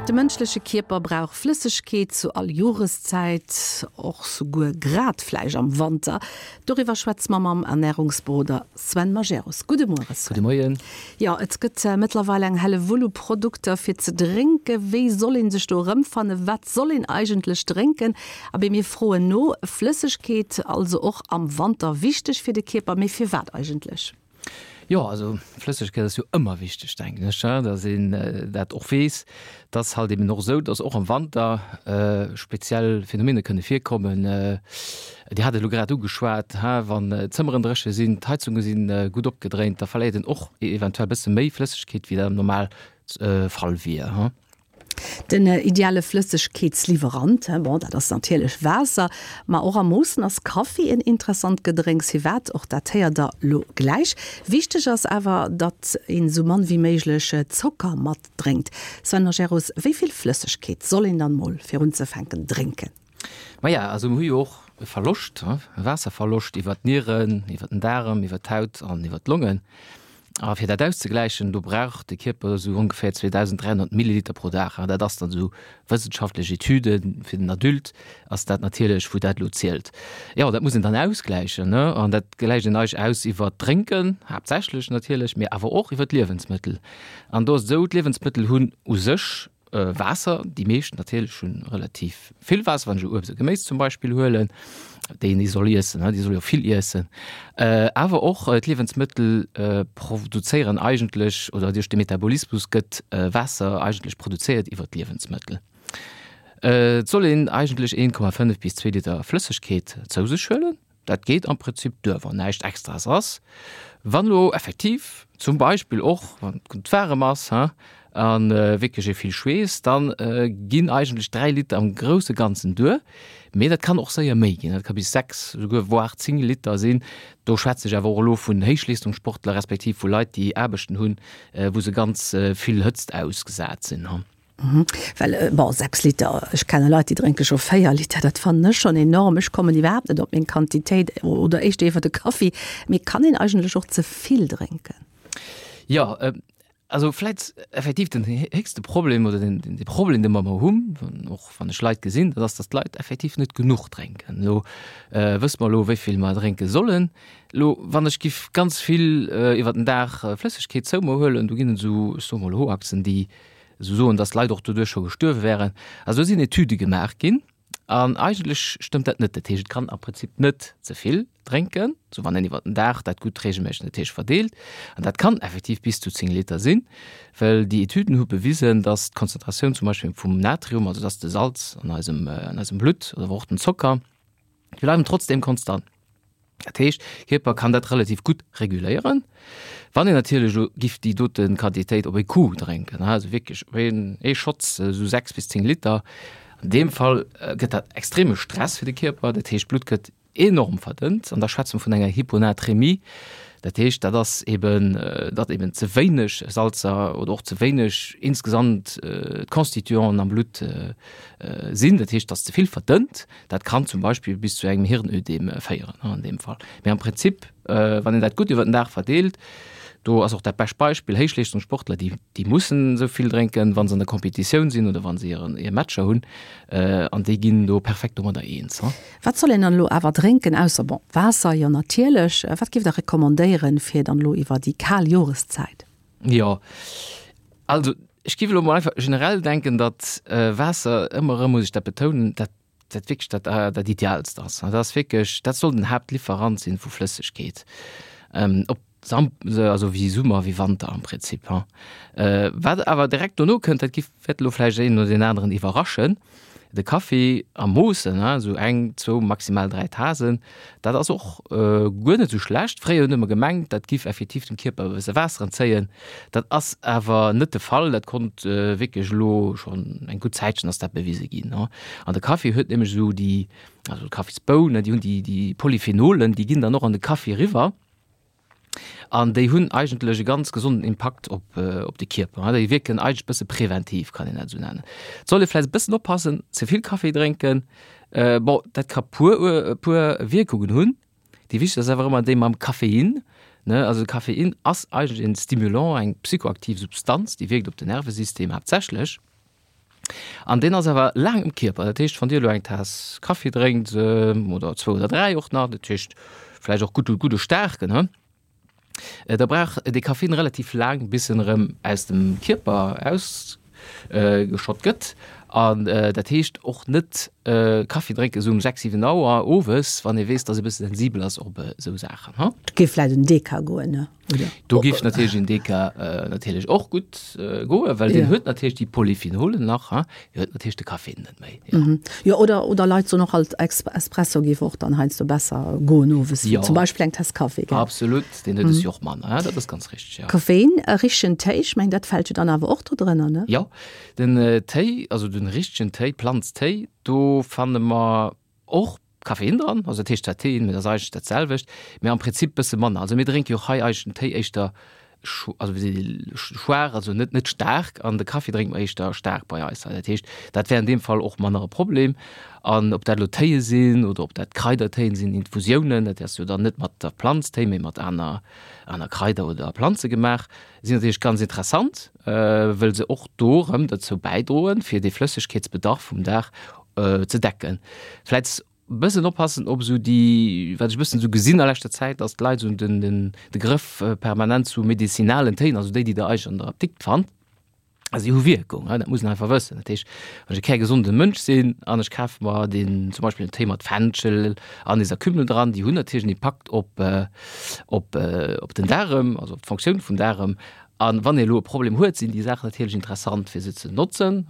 De mënschleche Kierper brauch Flëssegkeet zu all Joreszäit, och souguer grad vläicht am Wanter. Doriwwer schwätze mer mam Ernärungsberoder Sven Majerus. Gudde Muere Sven. Gudde Moien. Jo, et gëtt mëttlerweil eng Hellewull u Produkter fir ze drénken. Wéi soll een sech do erëmfannen? Wat soll een eigentlech drénken? Abee, mir froen no. Flëssegkeet also och am Wanter wichteg fir de Kierper, mee firwat eigentlech? Jo, also Flëssegkeet ass jo ëmmer wichteg, denken ech, datt een dat och weess. Et ass halt eben och esou, datt och am Wanter speziell Phänomene kënne virkommen. Dir hat et elo grad ugeschwat, wann d'Zëmmeren dréche sinn, d'Heizunge si gutt opgedréint, da verléiert een och eventuell e bësse méi Flëssegkeet, wéi dat am Normalfall wier. Den ideale Flëssegkeetsliwwerant, bon, dat ass natierlech Waasser, ma och a Moossen ass Kaffi en interessant Gedrénks. Firwat? Och dat héiert der lo gläich. Wichteg ass awer, datt een esou mann wéi méiglech Zocker mat drénkt. Sven Majerus, wéi vill Flëssegkeet soll een dann mol fir unzefänken drénken? Maja, also mir hu jo och e Verloscht, e Waasserverloscht iwwer d'Nieren, iwwer den Daarem, iwwer d'Haut an iwwer d'Longen. A fir dat auszegläichen, do brauch de Kierper esou ongeféier 2.300 Milliliter pro Dag. An dat ass dann esou wëssenschaftlech Etüden, fir den Adulte ass dat natierlech, wou dat elo zielt. Jo, dat muss een dann ausgläichen, ne? An dat gläicht een eigentlech aus iwwer d'Drénken, haaptsächlech natierlech, mee awer och iwwer d'Liewensmëttel. An do ass et esou, d'Liewensmëttel hunn u sech Waasser, déi meescht natierlech hunn relativ vill Waasser, wann ech elo Uebst a Geméis zum Beispill huelen, déi een soll iessen, déi soll jo vill iessen. Awer och d'Liewensmëttel produzéieren eigentlech, oder duerch de Metabolismus gëtt Waasser eigentlech produzéiert iwwer d'Liewensmëttel. Et soll een eigentlech 1,5 bis 2 Liter Flëssegkeet zou sech huelen. Dat geet am Prinzip duer, wann näischt Extraes ass. Wann elo effektiv zum Beispill och, wann et gutt waarem ass, hein, a wierklech ee vill schweesst, da ginn eigentlech 3 Liter am grousse Ganzen duer. Mee dat kann och séier méi ginn, dat ka bis 6, esouguer voire 10 Liter sinn. Do schwätze ech awer och elo vun Héichleestungssportler respektiv vu Leit, déi Aarbechten hunn, wou se ganz vill Hëtzt ausgesat sinn, hein. Well, bon, 6 Liter, ech kenne Leit, déi drénke scho 4 Liter, dat fannen ech schonn enorm. Ech kommen iwwerhaapt net op meng Quantitéit oder éischter iwwer de Kaffi. Mee kann een eigentlech och ze vill drénken? Jo, also vläit effektiv den héchste Problem oder den, de Problem, dee mer ëmmer hunn, och wann ech Leit gesinn, dat ass, datt d'Leit effektiv net genuch drénken. Elo wësse mer elo, wéi vill mer drénke sollen. Elo, wann ech giff ganz vill iwwer den Dag Flëssegkeet zou mer huelen, do ginn et esou, ech soe mol Hoaxen, déi esou soen, dass Leit och doduerch scho gestuerwe wären. Also do sinn Etüde gemaach ginn an eigentlech stëmmt dat net. Dat heescht, et kann am Prinzip net ze vill drénken, sou wann een iwwer den Dag dat gutt reegelméisseg dat heescht verdeelt. An dat kann effektiv bis zu 10 Liter sinn, well déi Etüden hu bewisen, dass d'Konzentratioun zum Beispill vum Natrium, also dass de Salz an eisem, an eisem Blutt oder och den Zocker, déi bleiwen trotzdeem konstant. Dat heescht, Kierper kann dat relativ gutt reguléieren. Wann een natierlech elo giff déi dote Quantitéit op ee Coup drénken, also wierklech op een ee Schotz, esou 6 bis 10 Liter, an deem Fall gëtt dat extreme Stress fir de Kierper. Dat heescht, d'Blutt gëtt enorm verdënnt an da schwätze mer vun enger Hyponatremie. Dat heescht, dat ass eben, datt eben ze wéineg Salzer oder och ze wéineg insgesamt d'Constituanten am Blutt sinn. Dat heescht, datt ze vill verdënnt. Dat kann zum Beispill bis zu engem Hirnödem féieren an deem Fall. Mee am Prinzip, wann een dat gutt iwwer den Dag verdeelt, do ass och dat bescht Beispill, Héichleeschtungssportler, déi, déi mussen esou vill drénken, wa se an der Competitioun sinn oder wa se hiren, hir Matcher hunn, an déi ginn do perfekt domadder eens. Wat soll een dann elo awer drénken, ausser, bon, Waasser, jo natierlech. Wat géift Der recommandéieren, fir dann elo iwwer déi kal Joreszäit? Jo, also ech géif elo mol einfach generell denken, datt Waasser, ëmmer erëm muss ech dat betounen, dat dat wierklech dat dat Idealst ass. Dat ass wierklech, dat soll den Haaptlieferant sinn vu Flëssegkeet, ob Sam also wéi Summer wéi Wanter am Prinzip. Wat awer direkt dono kënnt, dat giff wäert elo vläicht een oder deen aneren iwwerraschen, De Kaffi a Moossen, esou eng, zwou, maximal 3 Tasen, dat ass och guer net esou schlecht. Fréier hunn ëmmer gemengt, dat giff effektiv dem Kierper e bësse Waasser entzéien. Dat ass awer net de Fall. Dat konnt wierklech elo schonn eng gutt Zäitchen ass dat bewise ginn. An de Kaffi huet nämlech esou déi, also d'Kaffisbounen, déi hunn déi Polyphenolen, déi ginn dann och an de Kaffi eriwwer. An déi hunn eigentlech e ganz gesonden Impakt op, op de Kierper. Déi wierken eigentlech e bësse preventiv, kann een dat esou nennen. Et soll ee vläicht e bëssen oppassen, ze vill Kaffi drénken, bon, dat ka puer, puer Wierkungen hunn. Déi wichtegst ass awer ëmmer déi mam Koffein, ne. Also de Koffein ass eigentlech en Stimulant, eng psychoaktiv Substanz, déi wierkt op den Nervesystem haaptsächlech. An deen ass awer laang im Kierper. Dat heescht, wann Dir elo eng Taass Kaffi drénkt, oder zwou oder dräi och nach, dat heescht vläicht och gutt, gudde staarken, he, da brauch dee Kaffin relativ laang, bis en erëm aus dem Kierper ausgeschott gëtt. An dat heescht och net Kaffi drénken esou um 6, 7 Auer owes, wann ee weess, dass ee bësse sensibel ass op esou Saachen, he. Et géif vläicht en Deka goen, ne? Oder? Do géif natierlech en Deka natierlech och gutt goen, well deen huet natierlech déi Polyphenolen nach, ha, dee huet natierlech de Koffein net méi. Jo, jo oder, oder Leit soen och alt, Espresso géif och dann heiansdo besser goen owes, wéi zum Beispill eng Tass Kaffi, gell? Absolut, deen huet es jo och manner, ha, dat ass ganz richteg, jo. Koffein, e richtegen Téi, ech mengen dat fält jo dann awer och do drënner, ne? Jo, den Téi, also den richtegen Téi, Planztéi, do fanne mer och Koffein dran, also dat heescht zwar Teein, mee dat ass eigentlech dat selwecht, mee am Prinzip bësse manner. Also mir drénke jo och hei eigentlech den Téi éischter also wéi seet ee schwaach, also net net staark an de Kaffi drénke mer éischter staark bei eis hei. Dat heescht, dat wär an deem Fall och manner e Problem. An ob dat elo Téie sinn oder ob dat Kraidertéien sinn, Infusiounen, dat ass jo dann net mat der Planz Téi, mee mat aner aner Kraider oder Planze gemaach, sinn natierlech ganz interessant, wëll se och do erëm dozou bäidroen, fir dee Flëssegkeetsbedarf vum Dag ze decken. Vläit bëssen oppassen op esou déi, wat ech e bëssen esou gesinn a leschter Zäit, datt d'Leit esou den, den, de Grëff permanent zu medizinalen Téin, also déi, déi Der eigentlech an der Apdikt fannt, a si hu Wierkung, dat muss een einfach wëssen. Dat heescht, wann ech e kärgesonde Mënsch sinn an ech kafe mer deen zum Beispill en Téi mat Fenchel, Anis a Kümmel dran, déi hunn natierlech en Impakt op, op, op den Daarem, also op d'Fonctioun vum Daarem. A wann ee elo e Problem huet, sinn déi Saachen natierlech interessant, fir se ze notzen.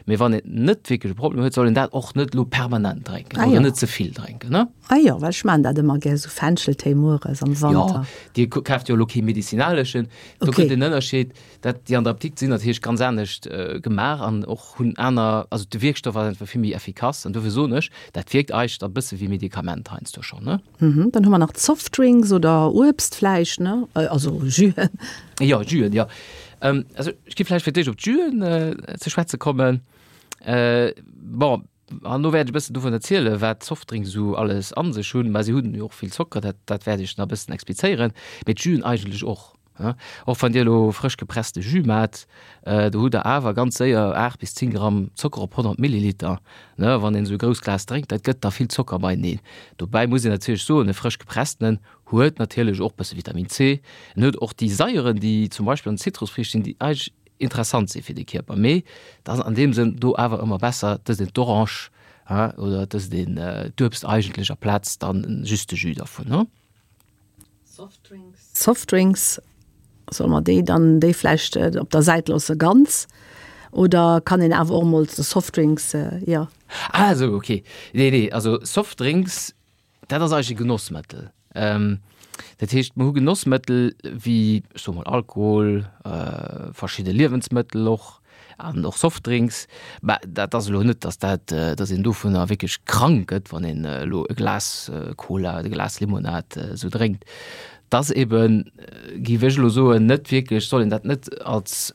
Mee wann een net wierklech e Problem huet, soll een dat och net elo permanent drénken oder net ze vill drénken. Ah jo, well ech maachen dat ëmmer gär, esou Fencheltéi mueres am Wanter. Jo, Dir kaaft jo elo kee medizinaleschen. Do gëtt en Ënnerscheed, dat déi an der Apdikt sinn natierlech ganz anescht gemaach an och hunn aner, also de Wierkstoff ass einfach vill méi effikass. An dofir soen ech, dat wierkt eigentlech e bësse wéi Medikament heiansdo schonn. Mhm, dann hu mer nach d'Softdrinks oder Uebst vläicht, ne? Also Jüen. Jo, Jüen, jo. Also ech gi vläicht fir d'éischt op d'Jüen ze schwätze kommen. Bon, an do wäert ech e bëssen dovun erzielen, wat d'Softdrinks esou alles a sech hunn. Mä si hunn jo och vill Zocker, dat, dat wäert ech nach e bëssen explizéieren. Mee d'Jüen eigentlech och. Och wann Dir elo frësch gepresste Jus maacht, do hutt Der awer ganz séier 8 bis 10 Gramm Zocker op 100 Milliliter. Wann een esou e grousst Glas drénkt, dat gëtt da vill Zocker beieneen. Dobäi muss een natierlech soen, e frësch gepresstenen huet natierlech och bësse Vitamin C. En huet och déi Saieren, déi zum Beispill an den Zitrusfriicht sinn, déi eigentlech interessant si fir de Kierper. Mee et ass an deem Sënn do awer ëmmer besser, et ësst een d'Orange oder et ësst een d'Uebst eigentlech aplaz dann just de Jus dervun. Softdrinks, solle mer déi dann déi vläicht op der Säit loosse ganz oder kann een awer och emol Softdrinks, jo. Ah esou, ok. Nee, nee, also Softdrinks, dat ass eigentlech e Genossmëttel. Dat heescht, mer hu Genossmëttel wéi, ech soe mol Alkohol, verschidde Liewensmëttel och, An och Softdrinks, mä dat ass elo net, datt dat, datt een dovunner wierklech krank gëtt, wann een elo e Glas Cola oder e Glas Limonad esou drénkt. Et ass eben, géif ech elo soen, net wierklech, soll een dat net als,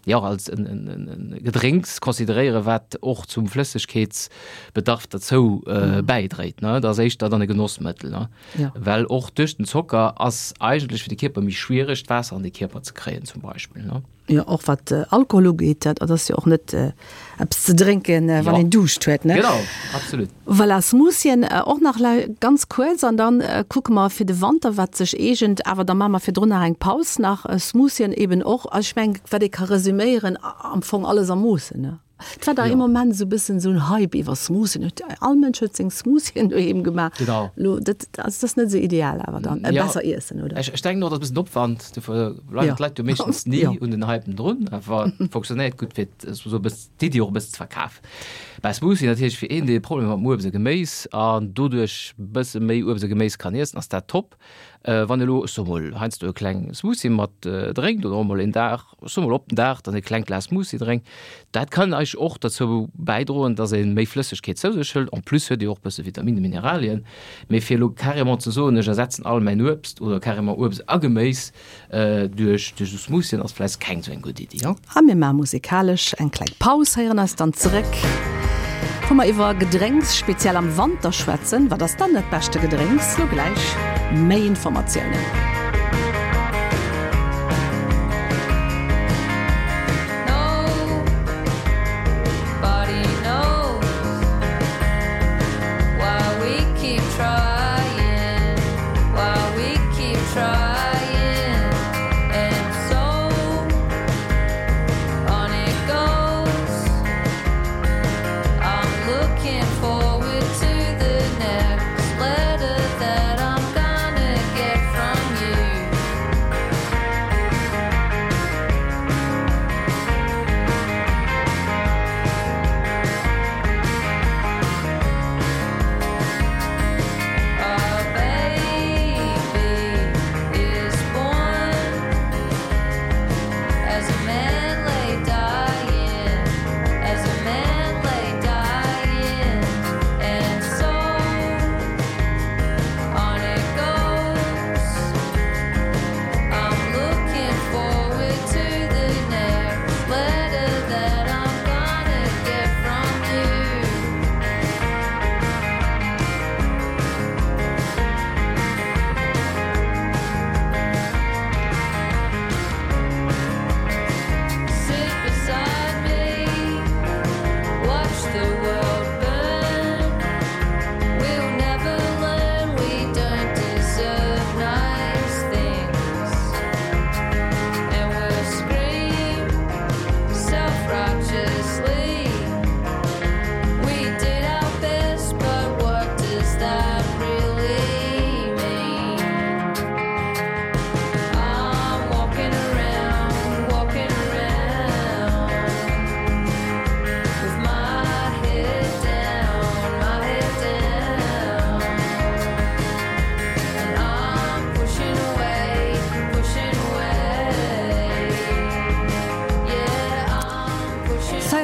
jo, als en Gedrénks consideréieren, wat och zum Flëssegkeetsbedarf derzou bäidréit. Dat ass éischter dann e Genossmëttel, ne? Well och duerch den Zocker ass eigentlech fir de Kierper méi schwiereg, d'Waasser an de Kierper ze kréien zum Beispill, ne? Jo, och wat Alkohol ugeet, dat ass jo och net eppes ze drénken, wann een Duuscht huet, ne? Genau, absolut. Voilà, Smoothien och nach ganz kuerz an dann kucke mer fir de Wanter, wat sech eegent. Awer da maache mer virdrun nach eng Paus nach. Smoothien eben och, also ech mengen, wat ee ka resüméieren, am Fong alles a Moossen, ne? Et war dach ee Moment esou e bëssen esou en Hype iwwer Smoothien. Huet all Mënsch huet seng Smoothien doheem gemaach. Genau. Lo, dat, also dat ass net esou ideal awer dann. Ja. Besser iessen, oder? Ech, ech denken och, dat ass e bëssen Opwand. Dofir bleiwen Ja. d'Leit jo meeschtens ni Ja. un den Hypen drun. Awer et fonctionnéiert gutt, fir esou e bëssen d'Iddi och e bëssen ze verkafen. Mä Smoothie natierlech fir een, dee Problemer mat Uebst a Geméis an doduerch e bësse méi Uebst a Geméis kann iessen, ass dat top. Wann elo, ech soe mol, heiansdo e kleng Smoothie mat drénkt oder och mol een Dag, ech soe mol op den Dag dann e klengt Glas Smoothie drénkt, dat kann eigentlech och derzou bäidroen, dass ee méi Flëssegkeet zou sech hëlt. En plus huet ee jo och e bësse Vitaminen, Mineralien. Mee fir elo carrément ze soen, ech ersetzen all mäin Uebst oder carrément Uebst a Geméis duerch esou Smoothien, ass vläicht keng esou eng gutt Iddi. A mir maache musikalesch eng kleng Paus, héieren eis dann zeréck, wou mer iwwer Gedrénks, speziell am Wanter, schwätzen. Wat ass dann dat beschte Gedrénks? Lo gläich méi Informatiounen.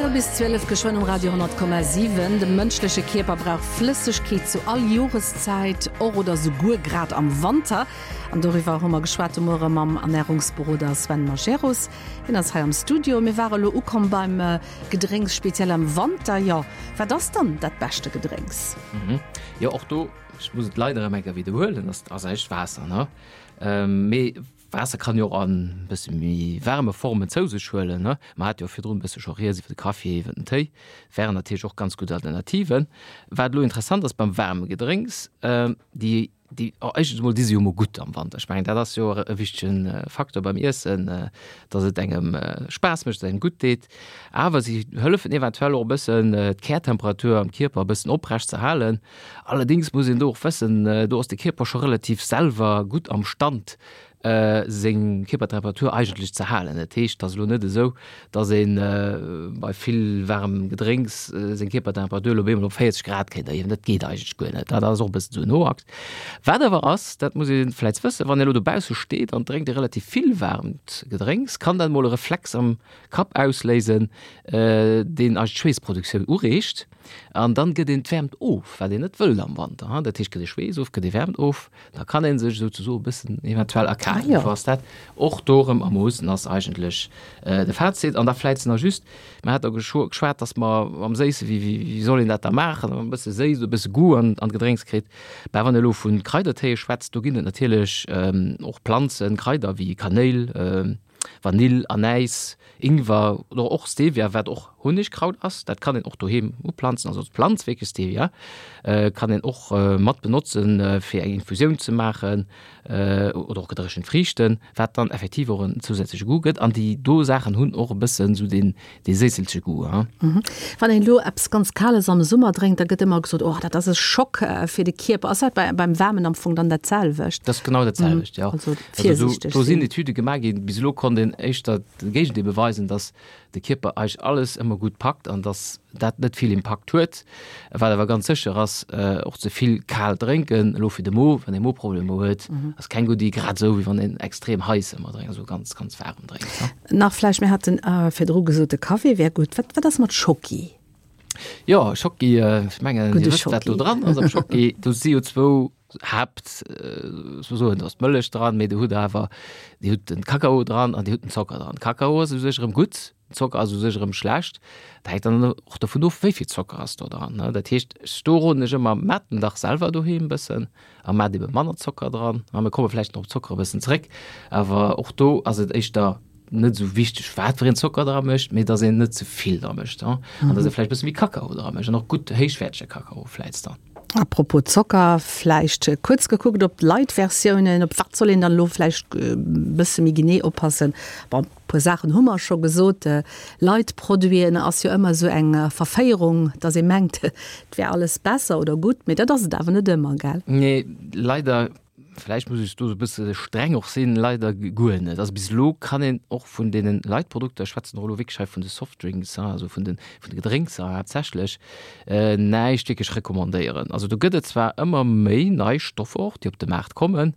Véierel bis 12 geschwënn um Radio 10,7. De mënschleche Kierper brauch Flëssegkeet zu all Joreszäit, och oder souguer grad am Wanter. An doriwwer hu mer geschwat de Muere mam Ernärungsberoder Sven Majerus. Hien ass hei am Studio. Mir ware lo ukomm beim Gedrénks, speziell am Wanter. Jo, wat ass dann dat beschte Gedrénks? Jo, och do, ech muss et leider erëm eng Kéier widderhuelen, ass eigentlech Waasser, ne? Mee Waasser kann jo och an bësse méi waarme Formen zou sech huelen, ne? Mer hate jo virdrun e bësse scho rieds iwwer de Kaffi, iwwer den Téi, wären natierlech och ganz gutt Alternativen. Wat elo interessant ass beim waarme Gedrénks, déi, déi, oh éischtens emol si se jo emol gutt am Wanter. Ech mengen, dat ass jo e wichtege Faktor beim Iessen, dass et engem Spaass mécht, dass et engem gutt deet. Awer si hëllefen eventuell och e bëssen d'Kärtemperatur am Kierper e bëssen oprecht ze halen. Allerdéngs muss een do och wëssen, do ass de Kierper scho relativ selwer gutt am Stand, seng Kierpertemperatur eigentlech ze halen. Dat heescht, et ass elo net esou, datt ee bei vill waarmem Gedrénks seng Kierpertemperatur elo op eemol op 40 Grad kéint erhiewen. Dat geet eigentlech guer net. Dat ass och e bëssen esou en Hoax. Wat awer ass, dat muss ee vläicht wëssen, wann ee elo dobausse steet an drénkt ee relativ vill waarmt Gedrénks, kann dat emol e Reflex am Kapp ausléisen, deen eis d'Schweessproduktioun ureegt. An dann gëtt een d'Wäermt of, wat een net wëllt am Wanter. Dat heescht, gëtt ee Schweess of, gëtt ee Wäermt of, da kann ee sech souzesoe e bëssen eventuell erkalen. Dofir ass dat och do erëm a Moossen ass eigentlech de Fazit. An da vläicht nach just, mer hat der geschwat, datt mer am Séisse, wéi, wéi soll een dat da maachen, e bësse séiss oder e bësse Goût an d'Gedrénks kritt. Mä wann ee elo vu Kraidertéie schwätzt, do ginn et natierlech och Planzen, Kraider wéi Kanéil, Vanill, Anäis, Ingwer oder och Stevia, wat och Hunnegkraut ass, dat kann een och doheem uplanzen, also d'Planz wierklech Stevia kann een och mat benotzen, fir eng Infusioun ze maachen oder och gedréchent Friichten, wat dann effektiv och en zousätzleche Goût gëtt. An déi do Saachen hunn och e bëssen esou deen dee séisselche Goût. Wann een elo eppes ganz Kales am Summer drénkt, da gëtt ëmmer gesot, oh dat ass e Schock fir de Kierper. Ass dat beim Waarmen am Fong dann dat selwecht? Dat ass genau dat selwecht, jo. Also virsiichteg sinn. Do sinn Etüde gemaach ginn. Bis elo konnt een éischter de Géigendeel beweisen, datt de Kierper eigentlech alles ëmmer gutt packt an datt dat net vill Impakt huet. Wat awer ganz sécher ass, och ze vill kal drénken, elo fir de Mo, wann ee Moproblemer huet, ass keng gutt Iddi, grad esou wéi wann een extrem heiss ëmmer drénkt, also ganz, ganz waarem drénkt. Nach vläicht, mir haten virdru gesot, de Café wär gutt. Wat, wat ass mat Schocki? Jo, Schocki, ech mengen, Dir wësst, wat do dran ass am Schocki. Do si jo zwou Haapt, soen, do ass d'Mëllech dran, mee do hutt Der awer, Dir hutt den Kakao dran an Dir hutt den Zocker dran. Kakao ass u sech erëm gutt, Zocker ass u sech erëm schlecht. Dat hänkt dann och dovun of, wéi vill Zocker ass do dran. Dat heescht, do roden ech ëmmer, Maacht en dach selwer doheem e bëssen a maacht ebe manner Zocker dran. A mir komme vläicht nach op Zocker e bëssen zréck, awer och do ass et éischter net esou wichteg, wat fir een Zocker dra mécht, mee datt een net ze vill dra mécht an datt ee vläicht e bësse méi Kakao dra mécht an och gutt héichwäertege Kakao vläicht dann. Apropos Zocker, vläicht kuerz gekuckt op d'Light-Versiounen, op wat soll een dann elo vläicht e bësse méi genee oppassen? Bon, e puer Saachen hu mer scho gesot. Light-Produiten ass jo ëmmer esou eng Verféierung, dass ee mengt, et wär alles besser oder gutt, mee dat ass et awer net ëmmer, gell? Nee, leider. Vläicht muss ech do e bësse streng och sinn, leider guer net. Also bis elo kann een och vun deene Light-Produkter, ech schwätzen och elo wierklech hei vun de Softdrinks, also vun de vun de Gedrénkser haaptsächlech, näischt wierklech recommandéieren. Also do gëtt et zwar ëmmer méi nei Stoffer och, déi op de Maart kommen,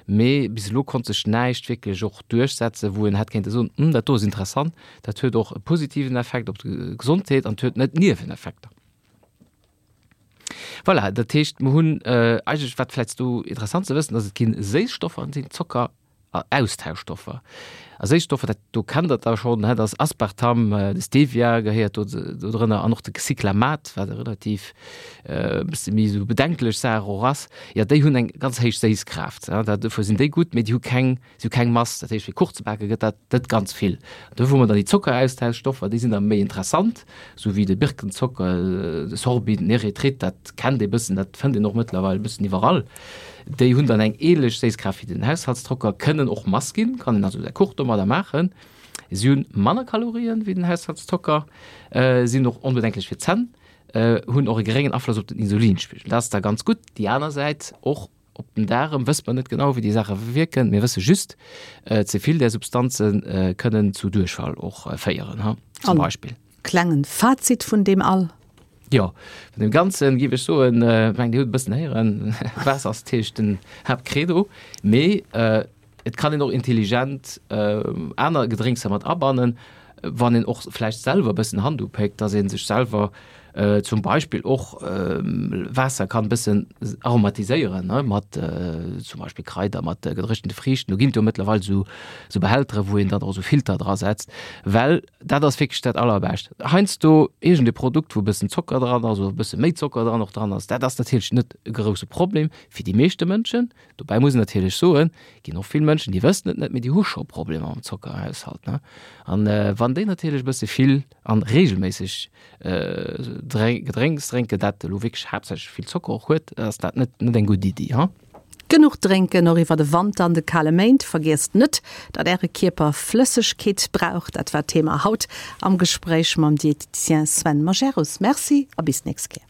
mee bis elo konnt sech näischt wierklech och duerchsetzen, wou een hätt kéinte soen, Hm, dat do ass interessant, dat huet och e positiven Effekt op d'Gesondheet an et huet net Nieweneffekter. Voilà, dat heescht, mer hunn eigentlech, wat vläicht do interessant ze wëssen ass, et ginn Séisstoffer an et sinn Zocker a Austauschstoffer. A Séisstoffer, dat do kennt Der da schonn, dat ass Aspartam, de Stevia gehéiert do do drënner an och de Cyclamat, wat e relativ e bësse méi esou bedenklech Saach och ass. Jo, déi hunn eng ganz héich Séisskraaft, dat dofir sinn déi gutt, mee déi hu keng Si hu keng Mass, dat heescht fir Kuch ze bake gëtt dat net ganz vill. Do hu mer dann déi Zockeraustauschstoffer, déi sinn da méi interessant, sou wéi de Birkenzocker, de Sorbit, den Erythrit, dat kennt ee bëssen, dat fënnt een och mëttlerweil e bëssen iwwerall. Déi hunn dann eng ähnlech Séisskraaft wéi den Haushaltszocker, kënnen och Mass ginn, kann een also säi Kuch domadder maachen. Si hunn manner Kalorien wéi den Haushaltszocker, sinn och onbedenklech fir d'Zänn, hunn och e geréngen Afloss op den Insulinspigel. Dat ass da ganz gutt. Déi aner Säit och Op den Daarem wësst mer net genau, wéi déi Saache wierken. Mir wësse just, ze vill där Substanze kënnen zu Duerchfall och féieren, ha, zum Beispill. An klengen Fazit vun deem all? Jo, vun deem Ganzen géif ech soen, ech mengen, Dir hutt e bëssen héieren, Waasser ass natierlech den Haaptcredo, mee et kann een och intelligent aner Gedrénkser mat abannen. wann een och vläicht selwer e bëssen Hand upéckt, dass ee sech selwer zum Beispill och Waasser kann e bëssen aromatiséieren, ne, mat zum Beispill Kraider, mat gedréchente Friichten. Do ginn et jo mëttlerweil esou esou Behältere wou een dann och esou Filter dra setzt, well dat ass wierklech dat Allerbescht. Heiansdo iergend e Produkt, wou e bëssen Zocker dran ass oder e bësse méi Zocker dran och dran ass, dat ass natierlech net e grousse Problem fir déi meeschte Mënschen. Dobäi muss een natierlech soen, ginn och vill Mënschen, déi wëssen et net, mee déi hu scho Problemer mam Zockerhaushalt, ne. An wann déi natierlech e bësse vill an reegelméisseg Gedrénks drénken, dat elo wierklech haaptsächlech vill Zocker och huet, ass dat net net eng gutt Iddi, ha. Genuch drénken, och iwwer de Wanter an de kale Méint. Vergiesst net, datt Äre Kierper Flëssegkeet brauch. Dat war d'Thema haut am Gespréich mam Diététicien Sven Majerus. Merci a bis d'nächst Kéier.